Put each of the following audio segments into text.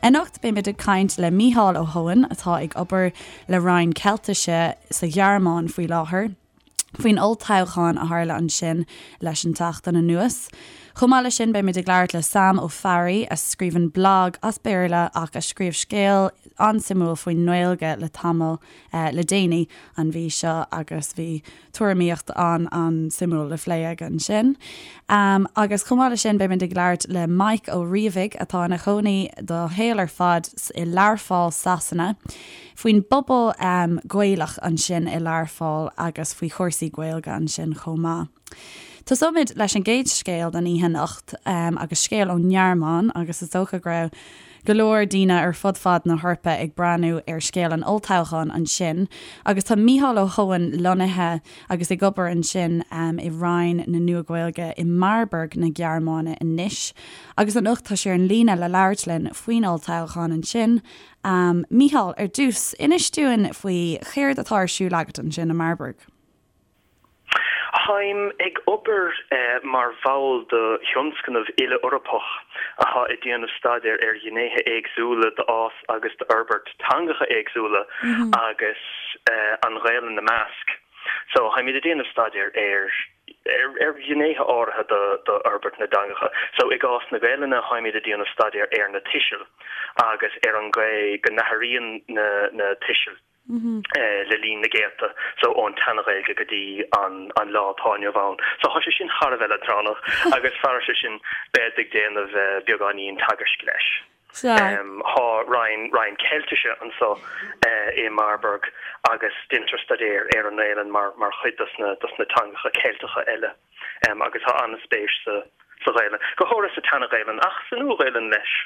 Anocht beimid ag caint le Mícheál Ó hEoghain atá ag obair le Roinn Ceiltise sa Ghearmáin faoi láthair faoin olltoghchán a tharla ansin leis an tseachtain anuas. Chomh maith leis sin beimid ag labhairt le Sam Ó Fearraigh a scríobhann blag as Béarla ach a scríobh scéal an-suimiúil faoin nGaeilge le tamall le déanaí an mhí seo agus bhí tuairimíocht an-an-suimiúil le phlé aige ansin. Agus chomh maith leis sin beimid ag labhairt le Mike Ó Riabhaigh atá ina chónaí dá shaol ar fad i Learpholl, Sasana, faoin bpobal Gaelach ansin i Learpholl agus faoi chúrsaí Gaeilge ansin chomh maith. Tosóimid leis an gcéad scéal don oíche anocht agus scéal ón nGearmáin agus is dócha go raibh go leor daoine ar fud fad na hEorpa ag breathnú ar scéal an olltoghcháin ansin agus tá Mícheál Ó hEoghain lonnaithe agus ag obair ansin i Roinn na Nua-Ghaeilge i Marburg na Gearmáine anois agus anocht tá sé ar an líne le labhairt linn faoin olltoghchán ansin. Mícheál, ar dtús, inis dúinn faoi chéard atá ar siúl agat ansin i Marburg. Táim ag obair mar bhall de thionscnamh uile-Eorpach atá ag déanamh staidéir ar ghnéithe éagsúla d'fhás agus d'fhorbairt teangacha éagsúla agus an Ghaelainn ina measc. So, táimid ag déanamh staidéir ar ar ghnéithe áirithe d'fhorbairt na dteangacha. So, i gcás na Gaelainne, táimid ag déanamh staidéir ar na tuisil agus ar an gcaoi go n-athraíonn na tuisil. le linn na gcéadta, so ón tSeana-Ghaeilge go dtí an lá atá inniu ann. So tá sé sin thar a bheith leadránach agus fairis sin bead ag déanamh beagáinín teagaisc leis. Tá roinn, roinn Ceiltise anso i Marburg agus deintear staidéar ar an nGaelainn mar, mar chuid dos na, dos na teangacha Ceilteacha eile agus tá an-spéis sa, sa Ghaelainn, go háirithe sa tSeana-Ghaelainn ach sa Nua-Ghaelainn leis.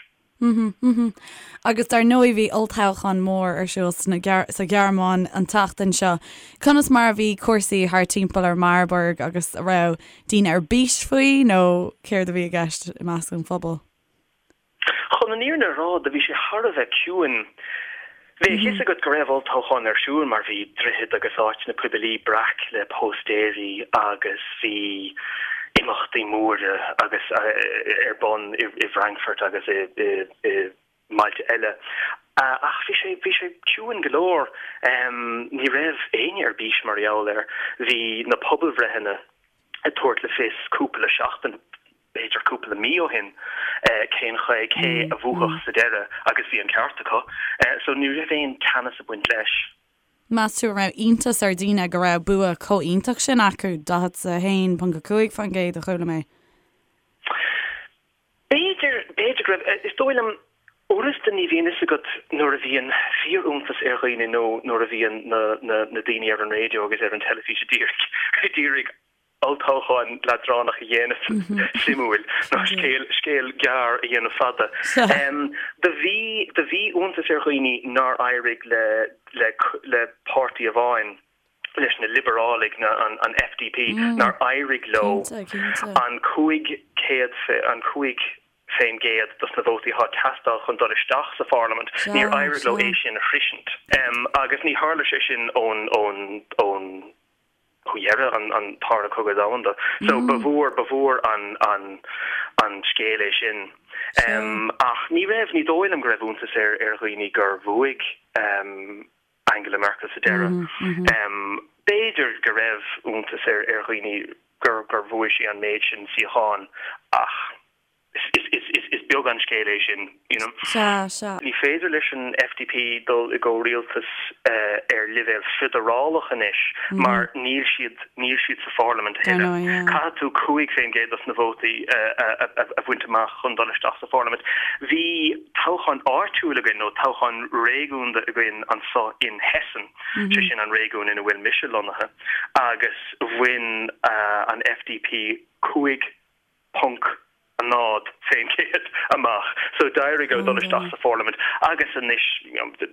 Agus dar ndóigh bhí olltoghchán mór ar siúl sa Ghearmáin an tseachtain seo. Conas mar a bhí cúrsaí thart timpeall ar Marburg agus an raibh daoine ar bís faoi nó céard a bhí i gceist i measc an phobail? Chun an fhírinne a rá, do bhí sé thar a bheith ciúin. Bhí a fhios agat go raibh olltoghchán ar siúl mar bhí droichid agus áiteanna poiblí breac le póstaeirí agus bhí imeachtaí móra agus ar bun i bhFrankfurt agus i mbailte eile. Ach bhí sé, bhí sé ciúin go leor. Ní raibh éinne ar bís mar gheall air. Bhí na pobalbhreitheanna ag tabhairt le fios cúpla seachtain, b'fhéidir cúpla mí ó shin, cén chaoi, cé a bhuafadh sa deireadh agus bhí an ceart acu. So ní raibh aon teannas ag baint leis. Meas tú an raibh iontas ar dhaoine go raibh bua chomh iontach sin acu, 41.5% a chuala mé? B'fhéidir, b'fhéidir go raibh. Is dóigh liom, uaireanta ní bhíonn fhios agat nuair a bhíonn fíor-iontas ar dhaoine nó nuair a bhíonn na, na, na daoine ar an raidió agus ar an teilifís a d'iarraidh, a d'iarraidh olltoghchán leadránach a dhéanamh suimiúil nó scéal, scéal gearr a dhéanamh fada. Do bhí, do bhí iontas ar dhaoine nár éirigh le, le, le páirtí amháin. leis na Liobarálaigh, an FDP, nár éirigh leo an 500, an 5% dos na vótaí atá ag teastáil chun dul isteach sa pharlaimint, níor éirigh leo é sin a shroisint. Agus ní tharla sé sin ón, ón, ón, ó dheireadh an, an Tarna Cogadh Domhanda. So ba mhór, ba mhór an, an, an scéal é sin. Ach ní raibh, ní dóigh liom go raibh iontas ar, ar dhaoine gur bhuaigh Angela Merkel sa deireadh. B'fhéidir go raibh iontas ar dhaoine gur bhuaigh sí an méid sin suíochán ach is beag an scéal é sin, you know. Sea, sea. Ní féidir leis an FDP dul i gcomhrialtas ar leibhéal feidearálach anois mar níl siad, níl siad sa pharlaimint a thuilleadh. Caithfidh tú 5% dos na vótaí a bhaint amach chun dul isteach sa pharlaimint. Bhí toghchán áitiúil againn, nó toghchán réigiúnda againn anso in Hessen, sé sin an réigiún ina bhfuil mise lonnaithe, agus bhain an FDP 5.0% amach. So d'éirigh leo dul isteach sa pharlaimint agus anois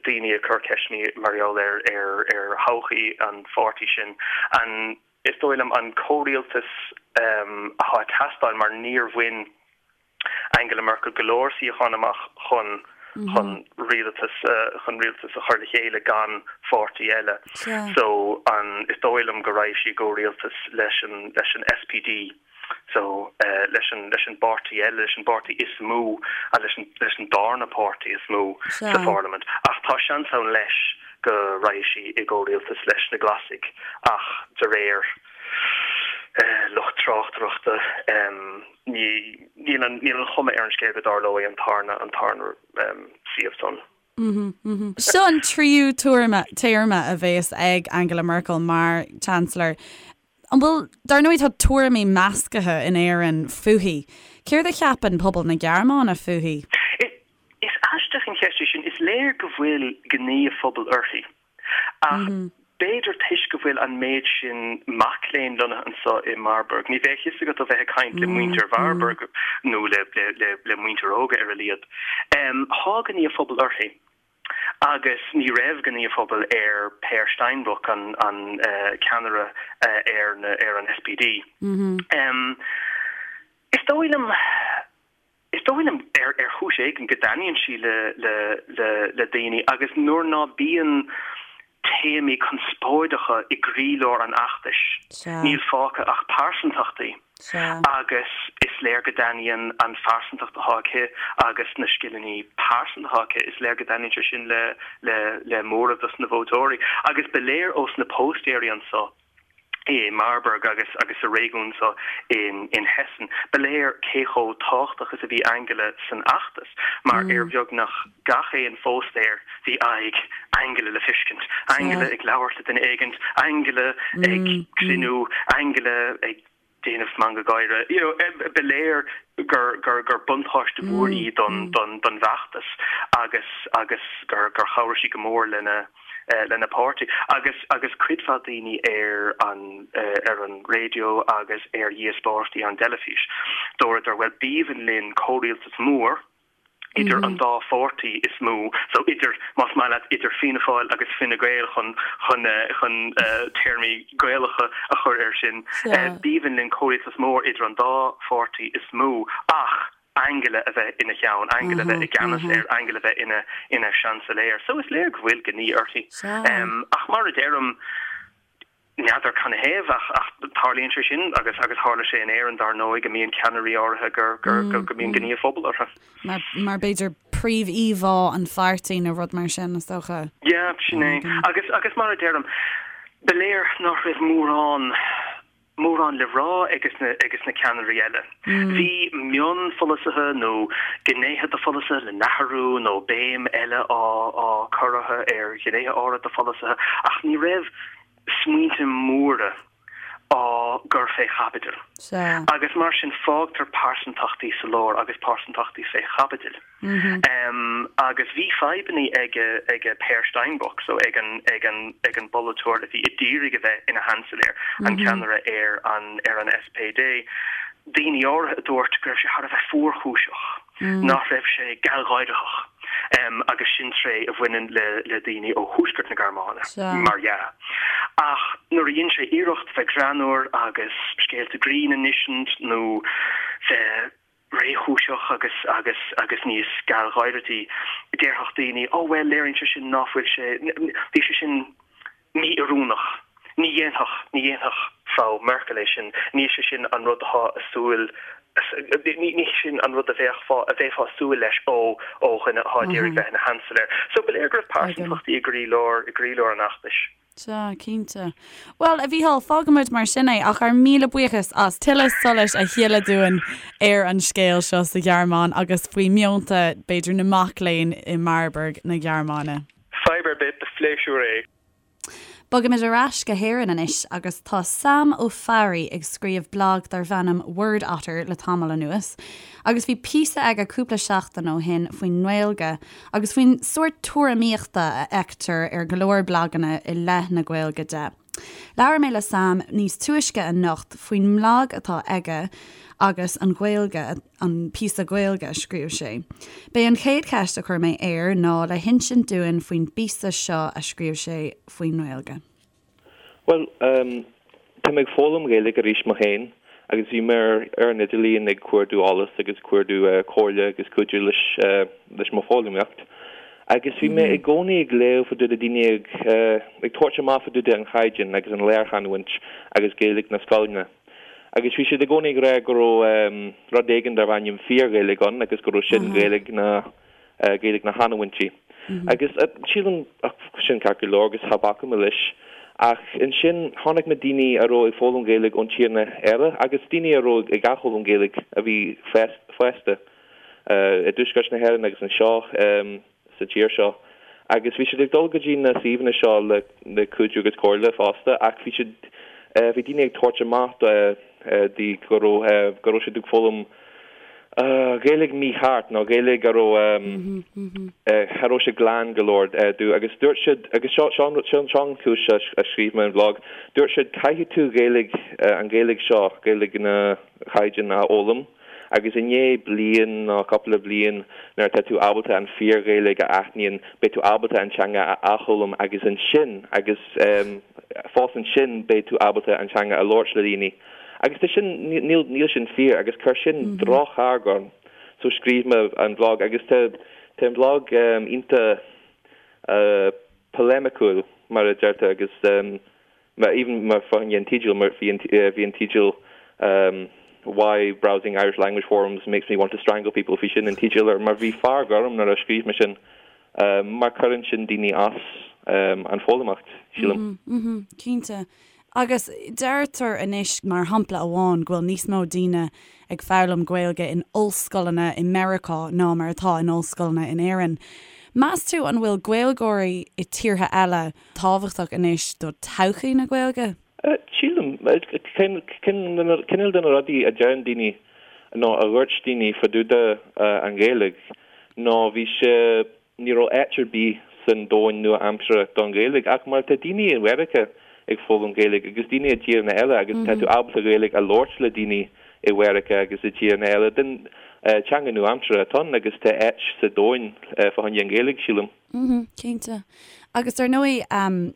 daoine ag cur ceisteanna mar gheall ar ar thodhchaí an pháirtí sin. An, is dóigh liom, an comhrialtas atá ag teastáil mar níor bhain Angela Merkel go leor suíochán amach chun chun rialtas chun rialtas a chur le chéile gan pháirtí eile. So an is dóigh liom go raghaidh sí i gcomhrialtas leis an leis an SPD. So, leis an, leis an bpáirtí eile, leis an bpáirtí is mó, leis an, leis an darna páirtí is mó sa pharlaimint. Ach tá seans ann leis go raghaidh sí i gcomhrialtas leis na Glasaigh ach de réir lucht tráchtaireachta ní, níl an, níl an chuma ar an scéal go dtarlóidh an tarna, an tarna suíomh san. Seo an tríú tuairme, téarma a bhéas ag Angela Merkel mar Chancellor. An bhfuil, dar ndóigh tá tuairimí meascaithe in Éirinn fúithi. Céard a cheapann pobal na Gearmáine fúithi? Is aisteach an cheist é sin. Is léir go bhfuil gnaoi an phobail uirthi. Ach b'fhéidir toisc go bhfuil an méid sin mac léinn lonnaithe anseo i Marburg, ní bheadh fhios agat ó bheith ag caint le muintir Mharburg nó le muintir óga ar a laghad. Tá gnaoi an phobail uirthi. Agus ní raibh gnaoi an phobail ar Peer Steinbrück, an ceannaire ar an SPD. Is dóigh liom. Is dóigh liom, ar chúis éigin, go dtaitníonn sí le daoine agus nuair ná bíonn téamaí conspóideacha i gcroílár an fheachtais, níl fágtha ach pearsantachtaí agus is léir go dtaitníonn an phearsantacht atá aici agus na scileanna pearsanta atá aici, is léir go dtaitníonn sé sin le móramh dos na vótóirí. Agus ba léir ós na póstaeirí anso, i Marburg agus agus sa réigiún seo in in Hessen. Ba léir cé chomh tábhachtach is a bhí Angela san fheachtas mar ar bheagnach gach aon phóstaer bhí aghaidh Angela le feiscint, Angela ag labhairt le duine éigint, Angela ag cruinniú, Angela ag déanamh meangadh gáire. You know, ba léir gur gur gur buntáiste mhór í don don don bhfeachtas agus agus gur gur chabhraigh sí go mór lena lena páirtí. Agus agus cuid mhaith daoine ar an ar an raidió agus ar dhíospóireachtaí ar an dteilifís, dúradar, bhuel, b'aoibhinn linn comhrialtas mór, idir an dá pháirtí is mó, so idir, más maith leat, idir Fianna Fáil agus Fine Gael chun, chun, chun téarmaí Gaelacha a chur air sin. B'aoibhinn linn comhrialtas mór idir an dá pháirtí is mó ach Angela a bheith ina cheann, Angela a bheith i gceannas air, Angela a bheith ina, ina seansailéir. So is léir go bhfuil gnaoi uirthi. Ach mar a deirim, N'fheadar canathaobh ach ach tarlaíonn sé sin agus agus tharla sé in Éirinn dar ndóigh go mbíonn ceannairí áirithe gur gur go go mbíonn gnaoi an phobail orthu. Mar mar b'fhéidir príomhíomhá an pháirtí nó rud mar sin is dócha. Yeah, sin é. Agus agus mar a deirim, ba léir nach raibh mórán mórán le rá ages na ages na ceannairí eile. Bhí mionpholasaithe nó gnéithe de pholasaithe le n-athrú nó béim eile á á cur orthu ar ghnéithe áirithe de pholasaithe ach ní raibh smaointe móra á gcur fé chaibidil. Agus mar sin fágtar pearsantachtaí sa lár agus pearsantachtaí fé chaibidil. Agus bhí fadhbannaí ag ag Peer Steinbrück, so ag an ag an ag an bpolaiteoir a bhí ag iarraidh a bheith ina sheansailéir, an ceannaire ar an ar an SPD. Daoine áirithe a dúirt go raibh sé thar a bheith fuarchúiseach, nach raibh sé gealgháireach, agus sin tréith a bhaineann le le daoine ó thuaisceart na Gearmáine, mar dhea. Ach nuair a dhein sé iarracht bheith greannmhar agus scéalta grinn a insint nó bheith réchúiseach agus agus agus níos gealgháirití, déarfadh daoine, 'Ó bhuel, léiríonn sé sin ná fuil sé, bhí sé sin mí-oiriúnach. Ní dhéanfadh, ní dhéanfadh Frau Merkel é sin, ní sé sin an rud atá ag súil, ní ní sin an rud a bheadh a bheifeá ag súil leis ó ó dhuine atá ag iarraidh bheith ina sheansailéir. So ba léir go raibh pearsantachtaí i gcroílár i gcroílár an fheachtais. Sea, cinnte. Bhuel, a Mhícheáil, fágfaimid mar sin é, ach ár míle buíochas as tuilleadh solais a shileadh dúinn ar an scéal seo sa Ghearmáin agus faoi mheonta, b'fhéidir, na mac léinn i Marburg na Gearmáine. Fadhb ar bith, ba phléisiúr é. Bogaimid ar ais go hÉirinn anois agus tá Sam Ó Fearraigh ag scríobh blag darbh ainm Word Otter le tamall anuas agus bhí píosa aige cúpla seachtain ó shin faoin nGaeilge agus faoin sórt tuairimíochta a fheictear ar go leor blaganna i leith na Gaeilge de. Labhair mé le Sam níos túisce anocht faoin mblag atá aige agus an Ghaeilge, an píosa Gaeilge a scríobh sé. B'é an chéad cheist a chuir mé air ná le hinsint dúinn faoin bpíosa seo a scríobh sé faoin nGaeilge. Bhuel, tá mé ag foghlaim Ghaeilge arís mo féin agus bhí mé ar an idirlíon ag cuardú eolas agus cuardú comhairle agus cuidiú leis leis mo foghlaimíocht. Agus bhí mé i gcónaí ag léamh fá dtaobh de daoine ag ag tabhairt amach fá dtaobh de an chaighdeán agus an lárchanúint agus Gaeilge na scoileanna. Agus bhí siad i gcónaí ag rá go raibh rud éigin darbh ainm fíor-Ghaeilge ann agus go raibh sin Gaeilge na Gaeilge na chanúintí. Agus sílim sin ceart go leor agus cha bhacaim leis. Ach ansin chonaic mé daoine a raibh ag foghlaim Gaeilge ón tíreanna eile agus daoine a raibh ag athfhoghlaim Gaeilge a bhí fásta i dtuaisceart na hÉireann agus anseo sa tír seo. Agus bhí siad ag dul go dtí na suíomhanna seo le le cuidiú agus comhairle fosta ach bhí siad bhí daoine ag tabhairt amach di go raibh go raibh siad ag foghlaim Gaeilge mícheart nó Gaeilge a raibh cha raibh sé glan go leor dó agus dúirt siad agus seo seo seo seo an chúis a scríobh mé an bhlag dúirt siad caithfidh tú Gaeilge an Ghaeilge seo Gaeilge na chaighdeán a fhoghlaim agus i ndiaidh bliain nó cúpla bliain nuair atá tú ábalta an fíor-Ghaeilge a aithníonn beidh tú ábalta an teanga a athfhoghlaim agus ansin agus fós ansin beidh tú ábalta an teanga a labhairt le daoine. Agus tá sin, níl, níl sin fíor agus chuir sin drochfhearg orm. So scríobh mé an bhlag agus tá, tá an bhlag iontach poileimiciúil mar a deirtear agus even mar fá choinne an teideal mar bhí an, bhí an teideal Why browsing Irish language forums makes me want to strangle people bhí sin an teideal air mar bhí fearg orm nuair a scríobh mé sin mar cuireann sin daoine as an foghlaimeacht, sílim. Cinnte. Agus deirtear anois, mar shampla amháin, go bhfuil níos mó daoine ag foghlaim Gaeilge in ollscoileanna i Meiriceá ná mar atá in ollscoileanna in Éirinn. Meas tú an bhfuil Gaeilgeoirí i tíortha eile tábhachtach anois do todhchaí na Gaeilge? Sílim. Cineál de na rudaí a deireann daoine nó a dhúirt daoine fá dtaobh de an Ghaeilge ná bhí sé, ní raibh áit ar bith san domhain nua-aimseartha don Ghaeilge ach mar tá daoine i Mheiriceá ag foghlaim Gaeilge agus daoine i dtíreanna eile agus tá tú ábalta Gaeilge a labhairt le daoine i Mheiriceá agus i dtíreanna eile den teanga nua-aimseartha atá ann agus tá áit sa domhain fá choinne an Ghaeilge, sílim. Mhm, cinnte. Agus dar ndóigh,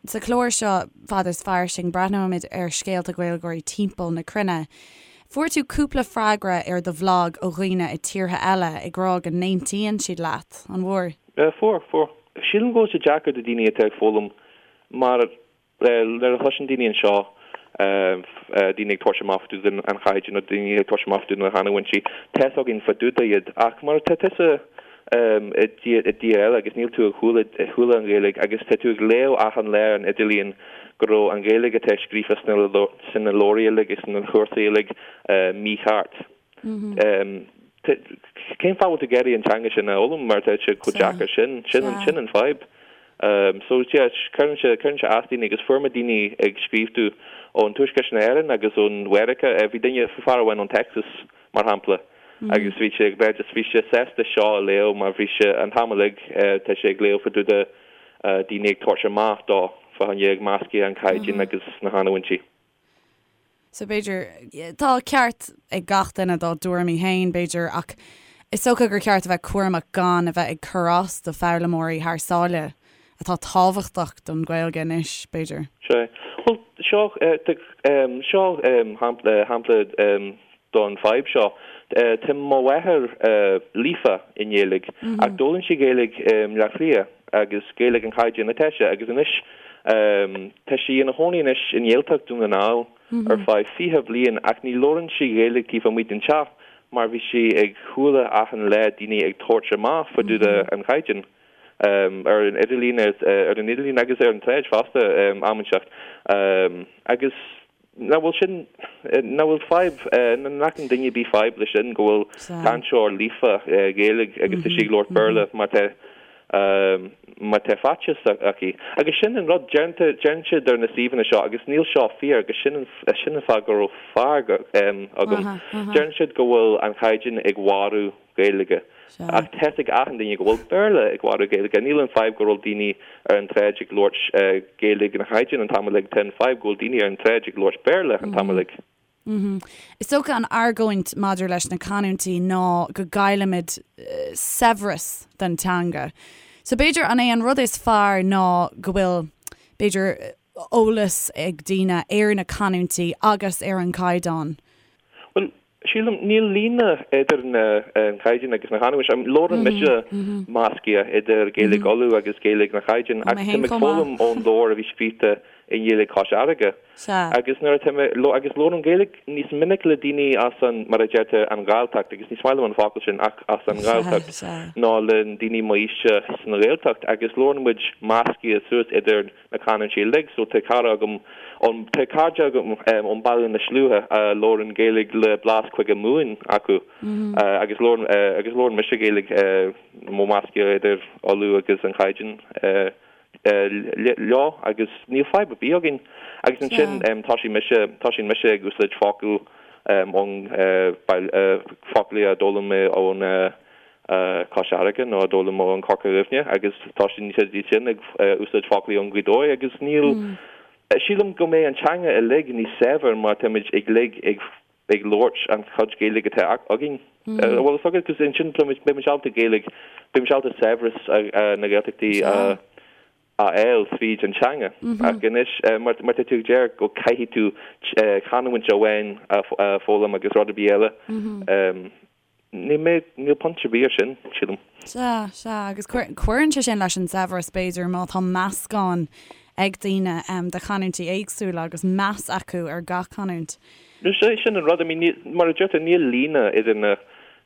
sa chlár seo, Fada is Fairsing, breathnóimid ar scéalta Gaeilgeoirí timpeall na cruinne. Fuair tú cúpla freagra ar do bhlag ó dhaoine i tíortha eile ag rá go n-aontaíonn siad leat, an bhfuair? Fuair, fuair. Sílim go bhfuil sé deacair do daoine atá ag foghlaim mar Nuair a chloiseann daoine anseo daoine ag tabhairt amach fá dtaobh den chaighdeán nó daoine ag tabhairt amach fá dtaobh na canúintí, tá fhios againn fá dtaobh de iad. Ach mar tá tusa i dtír eile agus níl tú ag chuala an Ghaeilge agus tá tú ag léamh achan lá ar an idirlíon go raibh an Ghaeilge atá scríofa sna leabhraí uilig agus sna cúrsaí uilig mícheart. Cén fáth bhfuil tú ag iarraidh an teanga sin a fhoghlaim mar tá sé chomh deacair sin? Sin sin an fadhb. So yeah, cuireann sé cuireann sé as daoine agus fuair mé daoine ag scríobh domh ón Tuaisceart na hÉireann agus ón Mheiriceá. Bhí duine, fear amháin ón Texas mar shampla agus bhí sé ag rá just bhí sé sásta seo a léamh mar bhí sé an t-am uilig tá sé ag léamh fá dtaobh de daoine ag tabhairt amach dó fá choinne ag meascadh an caighdeán agus na canúintí. So b'fhéidir, tá ceart ag gach duine dá dtuairimí féin, b'fhéidir, ach is dócha gur ceart a bheith cúramach gan a bheith ag cur as do foghlaimeoirí thar sáile, atá tábhachtach don Ghaeilge anois, b'fhéidir. Sea. Bhuel, seo, seo shampla don fadhb seo. Tá mo mháthair líofa i nGaeilge, ach d'fhoghlaim sí Gaeilge i mBleá Cliath agus Gaeilge an chaighdeáin atá aici agus anois tá sí ina chónaí anois i nGaeltacht Dún na nGall ar feadh 20 bliain ach ní labhrann sí Gaeilge taobh amuigh den teach mar bhí sí ag chuala achan lá daoine ag tabhairt amach fá dtaobh de an chaighdeán ar an idirlíon ar an idirlíon agus ar an tsráid fosta am inteacht agus Nach bhfuil sin, nach bhfuil fadhb, nach bhfuil duine ar bith fadhb leis sin, go bhfuil cainteoir líofa Gaeilge agus tá sí ag labhairt Béarla mar tá, mar tá faitíos aici. Agus sin an rud, deireann siad ar na suíomhanna seo, agus níl seo fíor, agus sin an, sin an fáth go raibh fearg agam, deireann siad go bhfuil an chaighdeán ag mharú Gaeilge. Ach tá fhios ag achan duine go bhfuil Béarla ag mharú Gaeilge. Níl an fadhb go raibh daoine ar an tsráid ag labhairt Gaeilge an chaighdeáin an t-am uilig, tá an fadhb go bhfuil daoine ar an tsráid ag labhairt Béarla an t-am uilig. Is dócha an argóint maidir leis na canúintí ná go gcaillimid saibhreas den teanga. So b'fhéidir an é an rud is fearr ná go bhfuil, b'fhéidir, eolas ag daoine ar na canúintí agus ar an gcaighdeán? Bhuel, Sílim, níl líne idir an caighdeán agus na canúint. Labhrann mise measctha idir Gaeilge Uladh agus Gaeilge na Caighdeán ach tá mé ag foghlaim ón leabhar a bhí scríte. i nGaeilge Chois Fharraige. Sea. Agus nuair atá mé, agus labhraím Gaeilge níos minic le daoine as an, mar a deirtear, an Ghalltacht, agus ní maith liom an focal sin, ach as an nGalltacht, ná le daoine m'aoise san Ghaeltacht, agus labhrann muid measctha suas idir na canúintí uilig. So tá cara agam ón, tá cairde agam ón Baile na Sluaighe a labhrann Gaeilge le blas Cúige Mumhan acu, agus labhrann, agus labhrann mise Gaeilge mo measctha idir Uladh agus an Chaighdeán. leo agus níl fadhb ar bith againn. Agus ansin tosaíonn mise, tosaíonn mise ag úsáid focail ón foclaí a d'fhoghlaim mé ón Cois Fharraige nó a d'fhoghlaim mé ón Corca Dhuibhne agus tosaíonn siad sin ag úsáid foclaí ón Ghaoth Dobhair agus níl, sílim go mbeidh an teanga uilig níos saibhir má táimid uilig ag ag labhairt an chuid Gaeilge atá againn. Bhfuil a fhios agat, cos ansin beidh muid ábalta Gaeilge, beidh muid ábalta saibhreas na Gaeltachtaí a fháil tríd an teanga. Ach anois, mar tá tú ag deir go caithfidh tú canúint amháin a foghlaim agus rud ar bith eile, Níl mé, níl point ar bith ar sin, sílim. Sea, sea, agus cuireann sé sin leis an saibhreas, b'fhéidir, má tá meascán ag daoine de chanúintí éagsúla agus meas acu ar gach canúint. Sea, sin an rud, I mean, níl, mar a deirtear, níl líne idir na,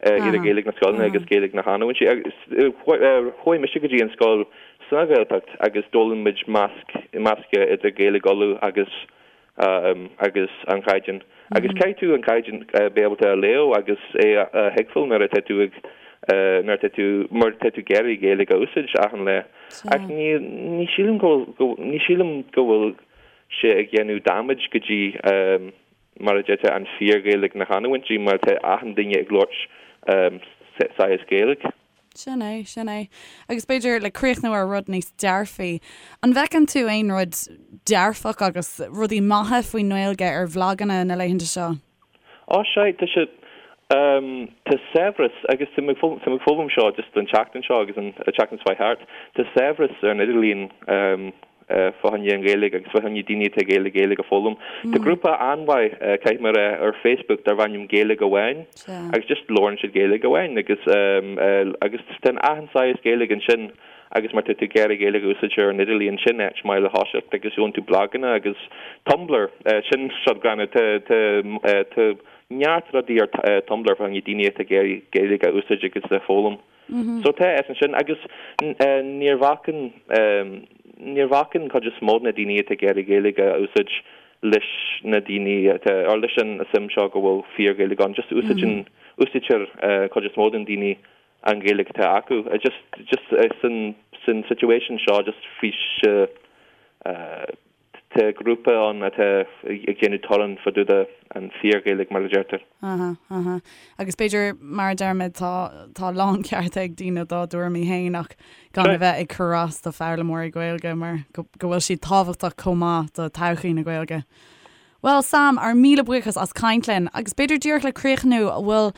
idir Gaeilge na scoileanna agus Gaeilge na chanúintí. Agus chuaigh mise go dtí an scoil sa Ghaeltacht agus d'fhoghlaim muid measc, meascadh idir Gaeilge Uladh agus agus an Chaighdeán. Agus caithfidh tú an Caighdeán bheith ábalta a léamh agus é a thuigbheáil nuair atá tú ag, nuair atá tú, mar tá tú ag iarraidh Gaeilge a úsáid achan lá. Ach ní, ní sílim go bhfuil, ní sílim go bhfuil sé ag dhéanamh damage go dtí, mar a deirtear, an fíor-Ghaeilge na chanúintí mar tá achan duine ag labhairt saghas Gaeilge. Sin é, sin é. Agus b'fhéidir le críochnú ar rud níos dearfaí, an bhfeiceann tú aon rud dearfach agus rudaí maithe faoin nGaeilge ar bhlaganna na laethanta seo? Á, sea, tá sé, tá saibhreas, agus tá mé ag foghlaim seo just an tseachtain seo agus an tseachtain seo thart, tá saibhreas ar an idirlíon fá choinne an Ghaeilge agus fá choinne daoine atá ag iarraidh Gaeilge a foghlaim. Tá grúpa an-mhaith, caithfidh mé a rá, ar Facebook darb ainm Gaeilge Amháin agus just labhrann siad Gaeilge amháin agus agus tá achan saghas Gaeilge ansin agus má tá tú ag iarraidh Gaeilge a úsáid ar an idirlíon sin áit maith le thoiseacht agus gheobhann tú blaganna agus Tumblr, sin seod greannmhar, tá tá tá neart rudaí ar Tumblr fá choinne daoine atá ag iarraidh Gaeilge a úsáid agus a foghlaim. So tá is ansin agus níor bhacann níor bhacann cuid is mó de na daoine atá ag iarraidh Gaeilge a úsáid leis na daoine atá or leis an suim seo go bhfuil fíor-Ghaeilge ann. Just úsáideann úsáidtear cuid is mó den daoine an Ghaeilge atá acu. Just just san san situation seo just bhí sé Tá grúpa ann atá ag déanamh torann fá dtaobh de an fíor-Ghaeilge, mar a deirtear. Aha, aha. Agus b'fhéidir, mar a deirimid, tá, tá láncheart ag daoine dá dtuairimí féin ach gan a bheith ag cur as do foghlaimeoirí Gaeilge mar go, go bhfuil siad tábhachtach chomh maith do todhchaí na Gaeilge. Bhuel, Sam, ár míle buíochas as caint linn. Agus b'fhéidir díreach le críochnú, an bhfuil,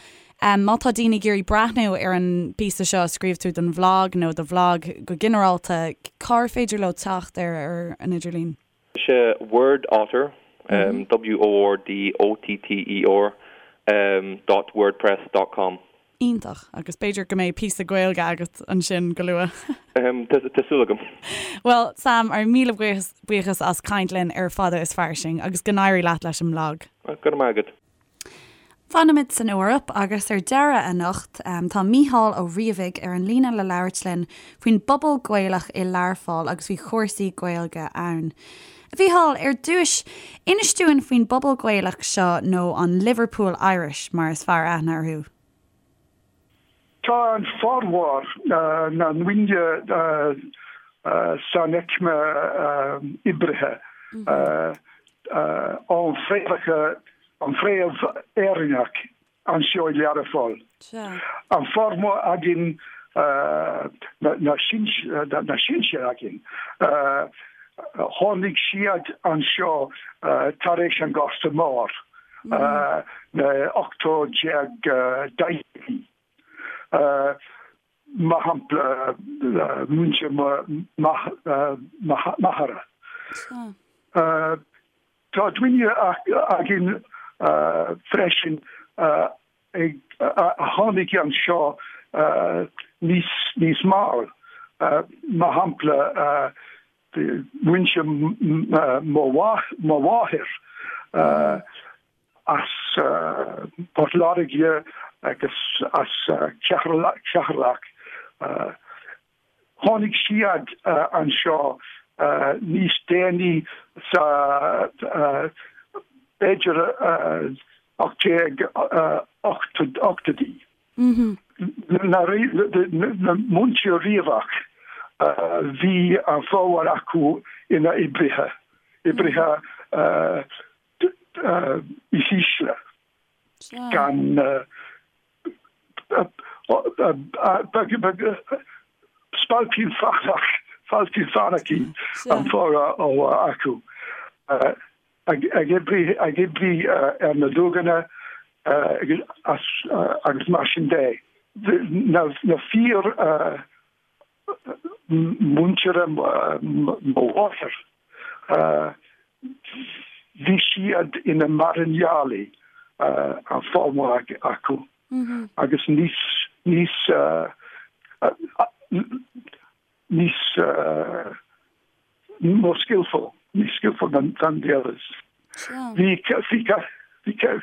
má tá daoine ag iarraidh breathnú ar an bpíosa seo a scríobh tú don bhlag nó do bhlag go ginearálta, cár féidir leo teacht air ar an idirlíon? Is é Word Otter, W-O-R-D-O-T-T-E-R, dot wordpress dot com. Iontach. Agus b'fhéidir go mbeidh píosa Gaeilge agat ansin go luath. Tá súil agam. Bhuel, Sam, ár míle buíochas as caint linn ar Fada is Fairsing agus go n-éirí leat leis an mblag. Go raibh maith agat. Fanfaimid san Eoraip agus ar deireadh anocht tá Mícheál Ó Riabhaigh ar an líne le labhairt linn faoin bpobal Gaelach i Learpholl agus faoi chúrsaí Gaeilge ann. A Mhícheáil, ar dtúis, inis dúinn faoin bpobal Gaelach seo nó an Liverpool Irish mar is fearr aithne orthu. Tá an formhór na ndaoine san aicme oibrithe ón fréamhacha, an fréamh Éireannach anseo i Learpholl. An formhór againn, na sinsir againn, tháinig siad anseo tar éis an Gorta Mór. na 18 daichidí. Mar shampla, muintir mo m'athara. Tá daoine againn freisin a tháinig anseo níos mall, mar shampla. muintir mo mháthair as Port Láirge agus as Ceatharlach. Tháinig siad anseo níos déanaí sa b'fhéidir 1880idí. Na muintir Riabhach, bhí an formhór acu ina oibrithe, oibrithe is ísle, gan spailpín fánach, spailpín fánach an formhór acu, ag oibriú ar na duganna agus mar sin de. Na fíor muintir mo mháthar, bhí siad ina mairnéalaigh, an formhór acu, agus níos, níos, níos more skillful, níos skillful than the others. Bhí, bhí, bhí,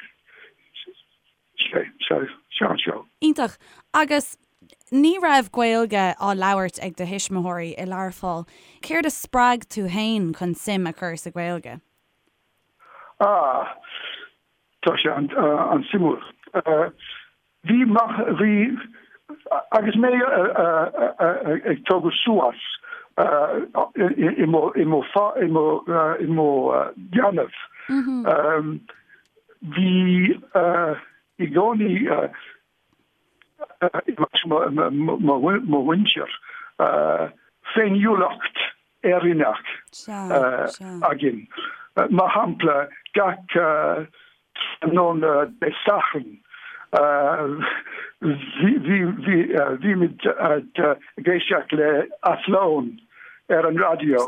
Iontach. Agus ní raibh Gaeilge á labhairt ag do thuismitheoirí i Learpholl. Céard a spreag tú féin chun suim a chur sa Ghaeilge? Ah, tá sé an-suimiúil. Bhí, bhí, agus mé ag tógadh suas i mo, i mo, i mo, i mo leanbh, Bhí i gcónaí i measc mo mhuintir féiniúlacht Éireannach againn. Mar shampla, gach tráthnóna Dé Sathairn bhímid ag éisteacht le Athlone ar an raidió.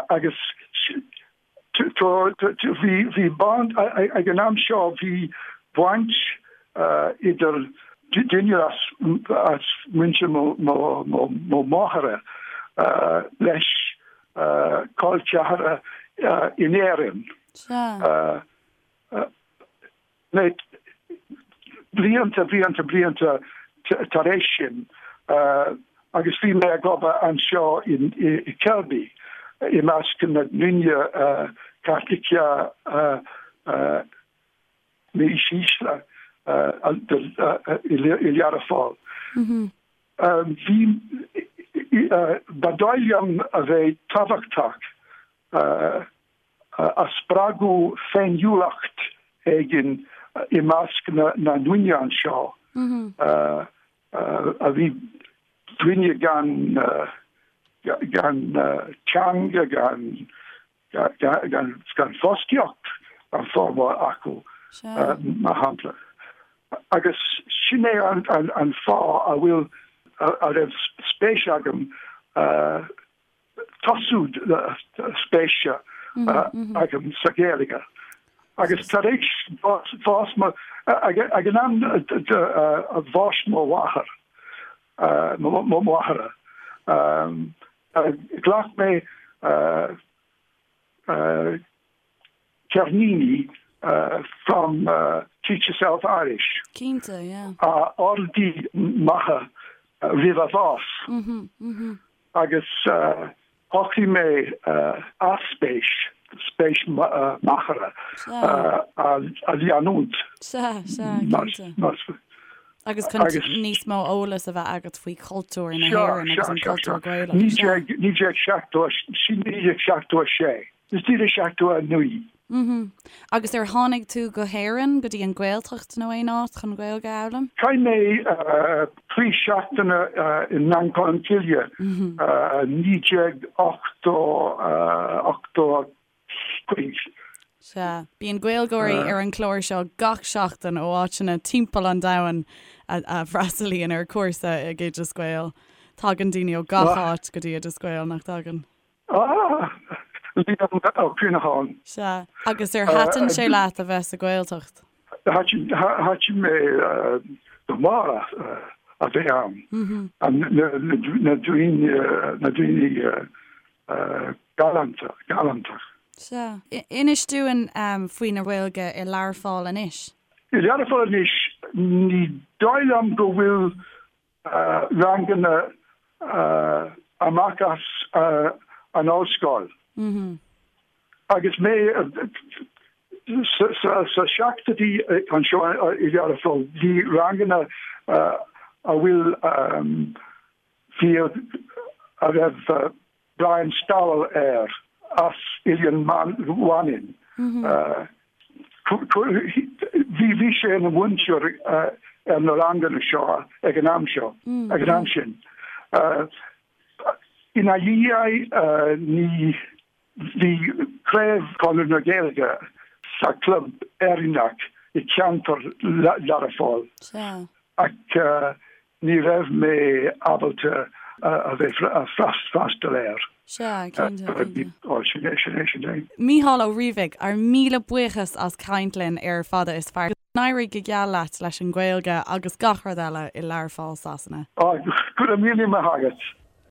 Agus bhí baint, ag an am seo bhí baint idir duine as muintir mo mháthara leis col ceathara in Éirinn. Blianta, blianta, blianta tar éis sin, agus bhí mé ag obair anseo i Kirkby i measc na ndaoine Caitliceacha níos ísle i Learpholl. Bhí, ba dóigh liom a bheith tábhachtach a spreagadh féiniúlacht éigin i measc na ndaoine anseo a bhí daoine gan gan teanga, gan gan fostaíocht an formhór acu, mar shampla. Agus sin é an fáth a bhfuil a raibh spéis agam tosú spéise agam sa Ghaeilge. Agus tar éis bhás mo, ag an am bháis mo mháthair, mo mháthara, ghlac mé ceirníní from Teach Yourself Irish. Cinnte, yeah. A d'ordaigh m'athair roimh a bhás. Agus shocraigh mé a spéis, spéis m'athara, a leanúint. Sea, sea, cinnte. Agus chun níos mó eolas a bheith agat faoi chultúr na hÉireann agus an cultúr Gaelach. 1976. Is 1979. Mhm. Agus ar tháinig tú go hÉirinn, go dtí an Ghaeltacht nó aon áit chun Gaeilge a fhoghlaim? Chaith mé 3 seachtaine i nGleann Cholm Cille, 1985. Sea. Bíonn Gaeilgeoirí ar an chlár seo gach seachtain ó áiteanna timpeall an domhain a fhreastalaíonn ar chúrsa ag Oideas Gael. Tagann daoine ó gach áit go dtí Oideas Gael, nach dtagann? Ah! Liam Ó Cuinneacháin. Sea. Agus ar thaitin sé leat a bheith sa Ghaeltacht? Thaitin mé go mór. a bheith ann. Na daoine, na daoine galánta, galánta. Sea. Inis dúinn faoin Ghaeilge i Learpholl anois. I Learpholl anois, ní dóigh liom go bhfuil ranganna amach as an ollscoil. Agus mé sa seachtóidí anseo i Learpholl, bhí ranganna a bhfuil fear a raibh Brian Stowell air as Oileán Mhanann. Bhí sé ina mhúinteoir ar na ranganna seo ag an am seo, ag an am sin. Ina dhiaidh ní bhí craobh Chonradh na Gaeilge sa Club Éireannach i gceantar Learpholl ach Ní raibh mé ábalta a bheith freastal air. Sea, cinnte, cinnte. Ó, sin é, sin é, sin é. Mícheál Ó Riabhaigh, ár míle buíochas as caint linn ar Fada is Fearr. Go n-éirí go geal leat leis an Ghaeilge agus gach rud eile i Learpholl, Sasana. Ó, go raibh míle maith agat.